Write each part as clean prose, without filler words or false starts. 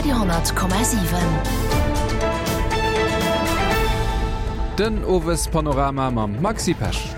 Radio 10,7. Den Owespanorama mam Maxi Pesch.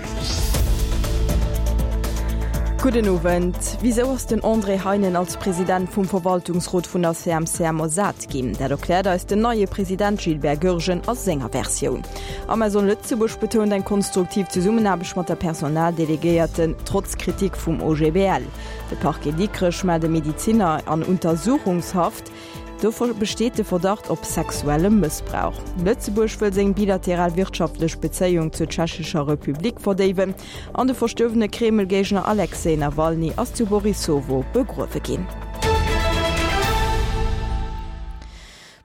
Gudden Owend. Wisou ass den André Heinen als President vum Verwaltungsrot vun der CMCM ersat ginn? Dat erkläert eis den neie President Gilbert Goergen a senger Versioun. Amazon Lëtzebuerg betount eng konstruktiv Zesummenaarbecht mat der Personaldelegéierten, trotz Kritik vum OGBL. De Parquet Dikrech mellt e Mediziner an Untersuchungshaft. Do besteet de Verdacht op sexuelle Mëssbrauch. Lëtzebuerg wëll seng bilateral wirtschaftlech Bezéiung zur Tschechescher Republik verdéiwen an de verstuerwene Kreml-Géigner Alexej Nawalny ass zu Borissowo begruewe ginn.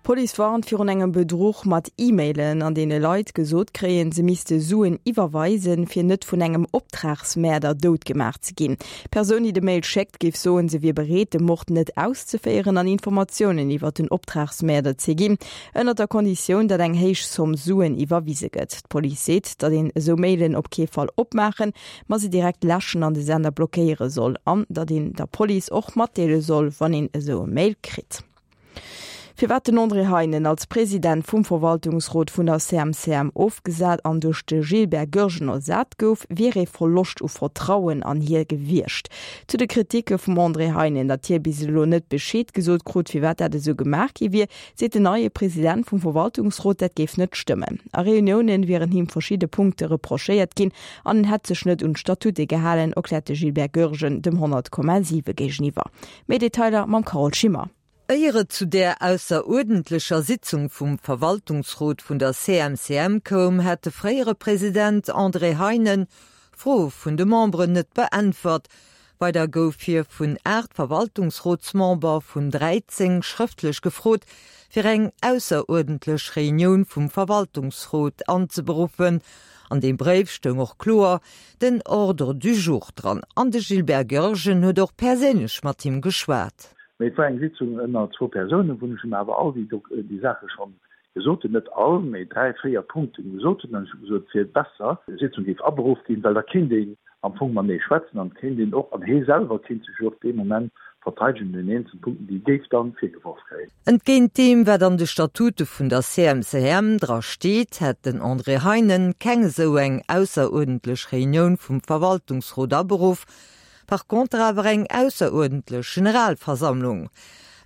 D'Police warnt virun engem Bedruch mat E-Mailen, an deene Leit gesot kréien, se misste Suen iwwerweisen, fir net vun engem Optragsmäerder dout gemaach ze ginn. D'Persoun, déi de Mail schéckt, géif soen, se wier bereet, de Mord net auszeféieren an Informatiounen iwwer den Optragsmäerder ze ginn, ënnert der Konditioun, datt eng héich Zomm Suen iwwerwise gëtt. D'Police seet, datt een esou Mailen op kee Fall opmaachen, ma se direkt läschen an de Sender blockéiere soll an datt een der Police och matdeele soll, wann een esou e Mail kritt. Firwat den André Heinen als President vum Verwaltungsrot vun der CMCM ofgesat an duerch de Gilbert Goergen ersat gouf, wier ee Verloscht u Vertrauen an hie gewiescht. Zu de Kriticke vum André Heinen, datt hie bis elo net Bescheed gesot krut, firwat dat esou gemaach gi wier, seet den neie President vum Verwaltungsrot, dat géif net stëmmen. A Reuniounen wieren him verschidde Punkte reprochéiert ginn an en hätt sech net un d'Statute gehalen, erkläert de Gilbert Goergen dem 100,7 géigeniwwer. Méi Detailer mam Carole Schimmer. Éier et zu där ausseruerdentlecher Sitzung vum Verwaltungsrot vun der CMCM koum, hätt de fréiere President André Heinen Froe vun de Memberen net beäntwert. Weider gouf hie vun 8 Verwaltungsrotsmember vun 13 schrëftlech gefrot, fir eng ausseruerdentlech Reunioun vum Verwaltungsrot anzeberuffen. An deem Bréif stoung och kloer den Ordre du jour dran an de Gilbert Goergen huet och perséinlech mat him geschwat. Mee et war eng Sitzung ënner zwou Persounen, wou ech him awer all déi déi Saache schonn gesot hunn, net all, mee dräi, véier Punkten gesot hunn. An ech hu gesot, et wier besser, d'Sitzung géif aberuff ginn, well da kéint een am Fong matenee schwätzen an et kéint een och, an hee selwer kéint sech jo och dee Moment verteidegen un den eenzelnen Punkten, déi e géif dann virgeworf kréien. Entgéint deem, wat an de Statute vun der CMCM dra steet, hätt den André Heinen keng esou eng ausseruerdentlech Reunioun vum Verwaltungsrot aberuff, par contre awer eng ausseruerdentlech Generalversammlung.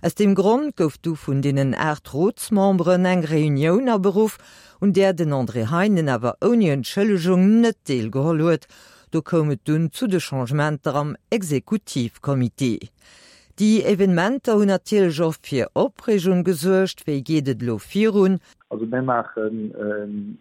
Aus deem Grond gouf du vun deenen 8 Rotsmemberen eng Reunioun aberuff, un där den André Heinen awer ouni Entschëllegung net deelgeholl huet. Do koum et dunn zu de Changementer am Exekutivcomité. Déi Evenementer hunn natierlech och fir Opreegung gesuergt. Wéi geet et elo virun? Also mir maachen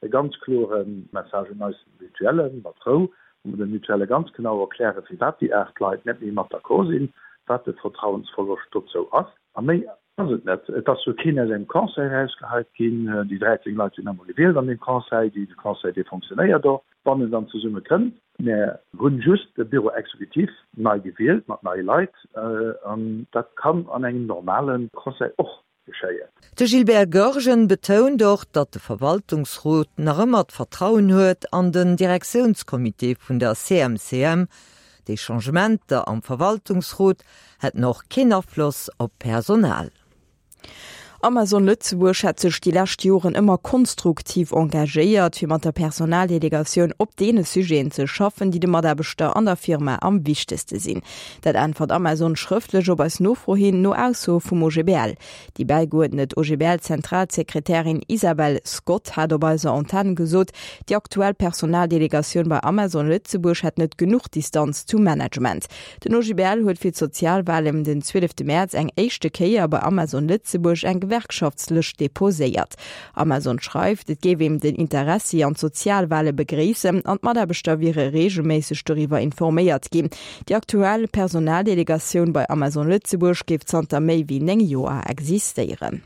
e ganz klore Message un eis Mutuellen, mat Rou, wou mer de Mutuelle ganz genau erklären, firwat déi 8 Leit net méi mat d'accord sinn, wat de Vertrauensverloscht dozou ass. A méi Ass et net. Et ass jo keen aus engem Conseil erausgeheit ginn. Déi 13 Leit sinn emol gewielt an deem Conseil. Dee Conseil, dee fonctionnéiert och, wann en dann zesumme kënnt. Mär hunn just de Bureau exécutif nei gewielt mat neie Leit an dat kann an engem normale Conseil och geschéien. De Gilbert Goergen betount och, datt de Verwaltungsrot nach ëmmer d'Vertrauen huet an den Direktiounscomité vun der CMCM. Déi Changementer am Verwaltungsrot hätten och keen Afloss op d'Personal. Amazon Lëtzebuerg hätt sech déi lescht Joren ëmmer konstruktiv engagéiert, fir mat der Personaldelegatioun op deene Sujeten ze schaffen, déi de Mataarbechter an der Firma am wichtegste sinn. Dat äntwert Amazon schrëftlech op eis Nofro hin, no Aussoe vum OGBL. Déi bäigeuerdnet OGBL-Zentralsekretärin Isabel Scott hat op eiser Antenn gesot, déi aktuell Personaldelegatioun bei Amazon Lëtzebuerg hätt net genuch Distanz zum Management. Den OGBL huet fir d'Sozialwahlen den 12 Mäerz eng éischte Kéier bei Amazon Lëtzebuerg eng Gewerkschaftslëscht deposéiert. Amazon schreift, et géif een den Interessi an d'Sozialwahle begréissen an d'Mataarbechter wiere reegelméisseg doriwwer informéiert ginn. Déi aktuell Personaldelegatioun bei Amazon Lëtzebuerg géif zanter méi wéi 9 Joer existéieren.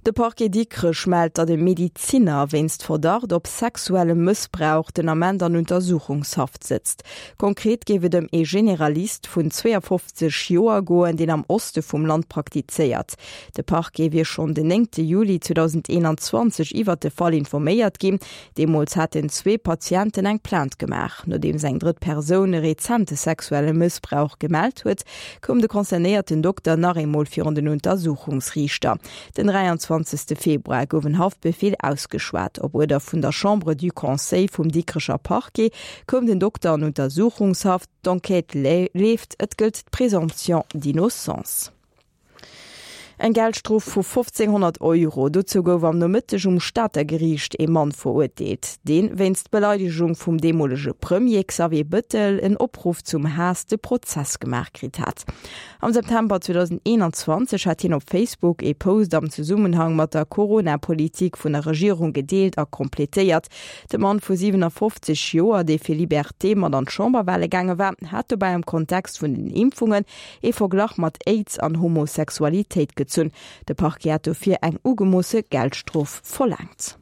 De Parquet Dikrech mellt, datt e Mediziner wéinst Verdacht op sexuellem Mëssbrauch den Ament an Untersuchungshaft sëtzt. Konkret géif et ëm ee Generalist vun 52 Joer goen, deen am Oste vum Land praktizéiert. De Parquet wier schonn den 9 Juli 2021 iwwert de Fall informéiert ginn. Deemools haten zwee Patienten eng Plainte gemaach. Nodeems eng drëtt Persoun e rezente sexuelle Mëssbrauch gemellt huet, koum de concernéierten Dokter nach eemol virun den Untersuchungsriichter. Den 23. Februar gouf en Haftbefeel ausgeschwat. Op Uerder vun der Chambre du Conseil vum Dikrecher Parquet koum den Dokter an Untersuchungshaft. D'Enquête leeft, et gëllt d'Présomption d'innocence. Eng Geldstrof vu 1.500 Euro, dozou gouf am Nomëtteg um Stater Geriicht ee Mann verurteelt, dee wéinst Beleidegung vum deemolege Premier Xavier Bëttel en Opruff zum Haass de Prozess gemaach kritt hat. Am September 2021 hat hien op Facebook ee Post am Zesummenhang mat der Corona-Politik vun der Regierung gedeelt a completéiert. De Mann vu 57 Joer, dee fir Liberté mat an d'Chamberwale gaange war, hat dobäi am Kontext vun den Impfungen ee Verglach mat Aids an Homosexualitéit gezunn. De Parquet hat dofir eng ugemoosse Geldstrof verlaangt.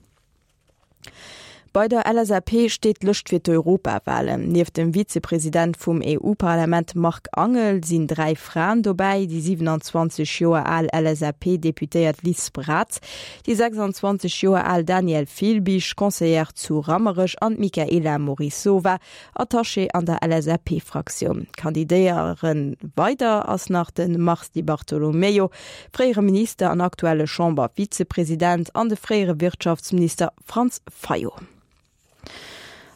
Bei der LSAP steet d'Lëscht fir d'Europawalen. Nieft dem Vizepresident vum EU-Parlament Marc Angel sinn 3 Fraen dobäi, déi 27 Joer al LSAP-Deputéiert Liz Braz, déi 26 Joer al Danièle Filbig, Conseillère zu Rammerech an d'Michaela Morisova, Attaché an der LSAP-Fraktioun. Kandidéiere weider ass nach de Mars Di Bartolomeo, fréiere Minister an aktuelle Chamber-Vizepresident, an de fréiere Wirtschaftsminister Franz Fayot.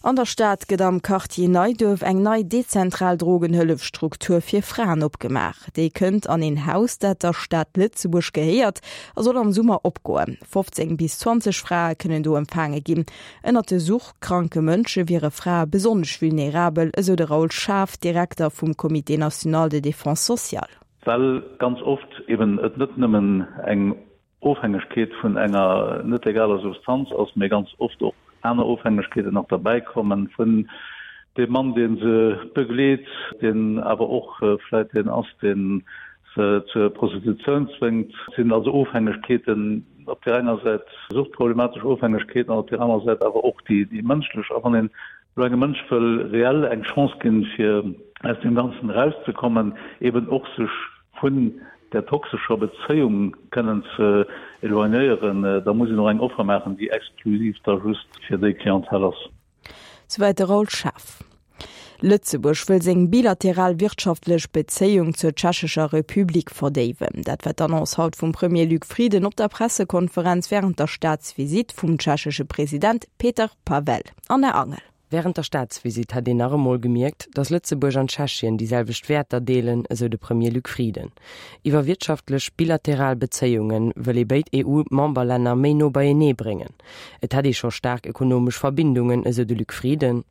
An der Stad gëtt am Quartier Neiduerf eng nei dezentral Drogenhëllefstruktur fir Fraen opgemaach. Déi kënnt an een Haus, dat der Stad Lëtzebuerg gehéiert a soll am Summer opgoen. 15 bis 20 Frae kënnen do empfaange ginn. Ënnert de suchtkranke Mënsche wiere Frae besonnesch vulnerabel, esou de Raoul Schaaf, Direkter vum Comité national de défense sociale. Well ganz oft eben et net nëmmen eng Ofhängegkeet vun enger net legaler Substanz ass, mee ganz oft och aner Ofhängegkeeten nach derbäi kommen, vun deem Mann, dee se begleet, deen awer och vläit deen ass, dee se zur Prostitutioun zwéngt. Et sinn also Ofhängegkeeten, op där enger Säit suchtproblematesch Ofhängegkeeten an op där anerer Säit awer och déi mënschlech. A wann een elo engem Mënsch wëll reell eng Chance ginn, fir aus deem Ganzen erauszekommen, eben och sech vun där toxescher Bezéiung kënnen ze éloignéieren, da muss een och eng Offer maachen, déi exklusiv da just fir déi Clientèle ass. Souwäit de Raoul Schaaf. Lëtzebuerg wëll seng bilateral wirtschaftlech Bezéiung zur Tschechescher Republik verdéiwen. Dat war d'Annonce haut vum Premier Luc Frieden op der Pressekonferenz wärend der Staatsvisitt vum tschechesche President Petr Pavel. Anna Angel. Wärend der Staatsvisitt hätt een nach emol gemierkt, datt Lëtzebuerg an Tschechien déi selwecht Wäerter deelen, esou de Premier Luc Frieden. Iwwer wirtschaftlech bilateral Bezéiunge wëll ee béid EU-Memberlänner méi no beienee bréngen. Et hätt ee scho staark ekonomesch Verbindungen, esou de Luc Frieden.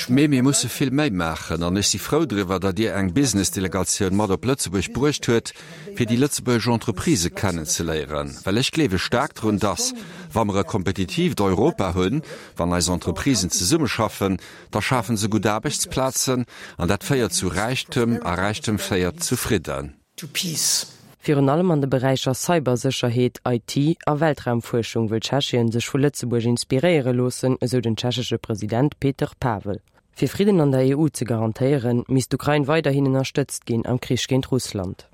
Mee mir musse vill méi maachen an ech si frou driwwer, datt Dir eng Business-Delegatioun mat op Lëtzebuerg bruecht huet, fir déi lëtzebuergesch Entreprisë kennenzeléieren, well ech gleewe staark drun, datt, wa mer e kompetitiivt Europa hunn, wann eis Entreprisen zesummeschaffen, da schafe se gutt Aarbechtsplazen an dat féiert zu Räichtem a Räichtem féiert zu Fridden. to peace. Virun allem an de Beräicher Cybersécherheet, IT a Weltraumfuerschung wëll Tschechien sech vu Lëtzebuerg inspiréiere loossen, esou den tschechesche President Petr Pavel. Fir Fridden an der EU ze garantéieren, misst d'Ukrain weiderhin ënnerstëtzt ginn am Krich géint Russland.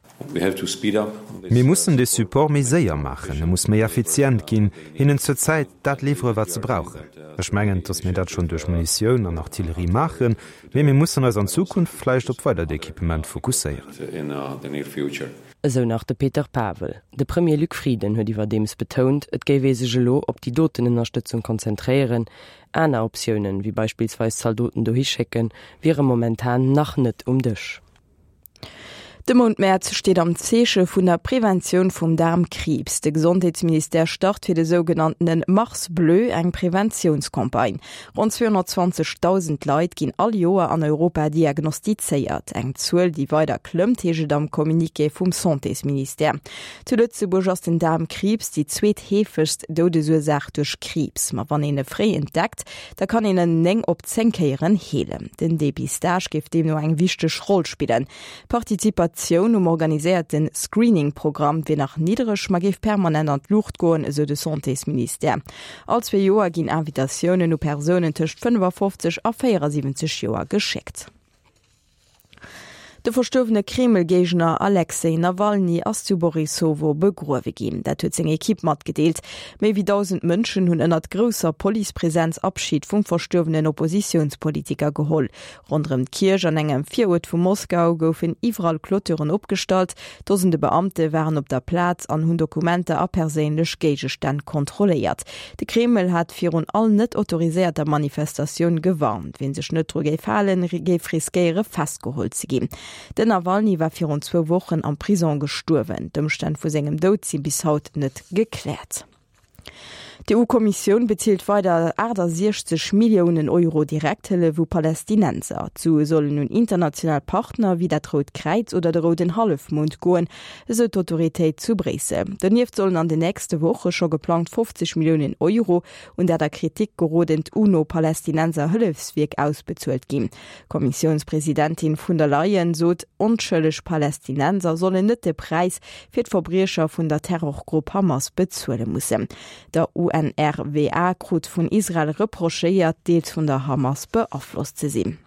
Mir mussen dee Support méi séier maachen, e muss méi effizient ginn, hinnen zur Zäit dat liwwere wat se brauchen. Ech mengen, datt mir dat schonn duerch Munitioun an Artillerie maachen, Mee mir mussen eis an Zukunft vläicht op weidert Equipement fokusséieren. Esou nach de Petr Pavel. De Premier Luc Frieden huet iwwerdeems betount, et géif ee sech elo op déi doten Ënnerstëtzung konzentréieren. Aner Optiounen, wéi beispillsweis Zaldoten dohi schécken, wiere momentan nach net um Dësch. De Mount Mäerz steet am Zeeche vun der Preventioun vum Daarmkriibs. De Gesondheetsministère start fir de sougenanntene Mars Bleu eng Preventiounscampagne. Ronn 220.000 Leit ginn all Joer an Europa diagnostizéiert. Eng Zuel, déi weider klëmmt, heescht et am Communiqué vum Santésministère. Zu Lëtzebuerg ass den Daarmkriibs déi zweetheefegst Doudesursaach duerch Kriibs. Ma wann een e fréi entdeckt, Da kann een en 9 op 10 Kéieren heelen. Den Depistage géif deemno eng wichteg Roll spillen. Participatioun um organiséierte Screening-Programm wier nach niddereg, ma géif permanent an d'Luucht goen, esou de Santésministère. All zwee Joer ginn Invitatiounen u Persounen tëscht 55 a 74 Joer geschéckt. De verstuerwene Kreml-Géigner Alexej Nawalny ass zu Borissowo begruewe ginn. Dat huet seng Ekipp matgedeelt. Méi wéi 1.000 Mënschen hunn ënnert grousser Policepresenz Abschid vum verstuerwenen Oppositiounspolitiker geholl. Ronderëm d'Kierch an engem Viruert vu Moskau goufen iwwerall Clôturen opgestallt. Dosende Beamte waren op der Plaz an hunn Dokumenter a perséinlech Géigestänn kontrolléiert. De Kreml hat virun all net autoriséierter Manifestatioun gewarnt. Wien sech net dru géif halen, géif riskéiere festgeholl ze ginn. Den Nawalny war virun zwou Wochen am Prisong gestuerwen. D'Ëmstänn vu sengem Doud si bis haut net gekläert. D'EU-Kommissioun bezilt weider 68 Milliounen Euro Direkthëllef u Palästinenser. D'Sue sollen un international Partner wéi dat Rout Kräiz oder de Rouden Hallefmond goen, esou d'Autoritéit zu Bréissel. Donieft sollen an den nächste Woche scho geplangt 50 Milliounen Euro un dat a Kritik gerodent UNO-Palästinenser-Hëllefswierk ausbezuelt ginn. D'Kommissiounspresidentin vun der Leyen sot, onschëlleg Palästinenser sollen net de Präis fir d'Verbriecher vun der Terrorgrupp Hamas bezuele mussen. Der UNRWA krut vun Israel reprochéiert, deels vun der Hamas beaflosst ze sinn.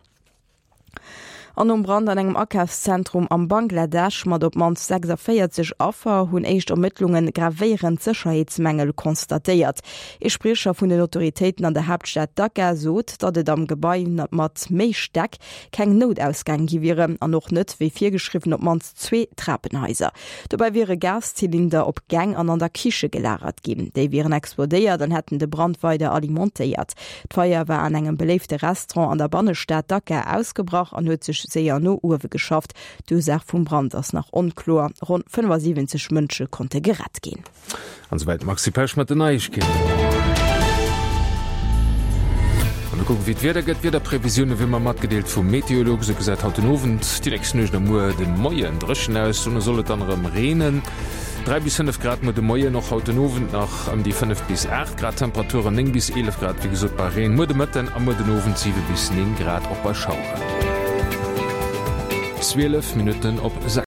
An nom Brand an engem Akafszentrum am Bangladesch mat op d'mannst 46 Affer hunn éischt Ermëttlunge gravéierend Sécherheetsmängel constatéiert. Ee Spriecher vun den Autoritéiten an der Haaptstad Dhaka sot, datt et am Gebai mat méi Stäck keng Noutausgäng gi wieren an och net, wéi virgeschriwwen, op d'mannst zwee Trapenhaiser. Dobäi wiere Gaszylinder op Gäng an an der Kiche gelagert ginn. Déi wieren explodéiert an hätten de Brand weider alimentéiert. D'Feier war an engem beléifte Restaurant an der Bannestad Dhaka ausgebrach an huet sech séier no uewe geschafft. D'Ursaach vum Brand ass nach onkloer. Ronn 75 Mënsche konnte gerett ginn. An souwäit d'Maxi Pesch mat den Neiegkeeten. An mir kucken, wéi d'Wieder gëtt. D'Wiederprevisioune wéi mer matgedeelt vum Meteolux. Esou gesäit haut den Owend, déi nächst Nuecht a muer de Moien dréchen aus. Dono soll et dann erëm reenen. 3 bis 5 Grad muer de Moien, och haut den Owend nach ëm déi 5 bis 8 Grad Temperaturen, 9 bis 11 Grad wéi gesot bei Reen muer de Mëtten a muer den Owend 7 bis 9 Grad och bei Schaueren. 12 Minutten op 6.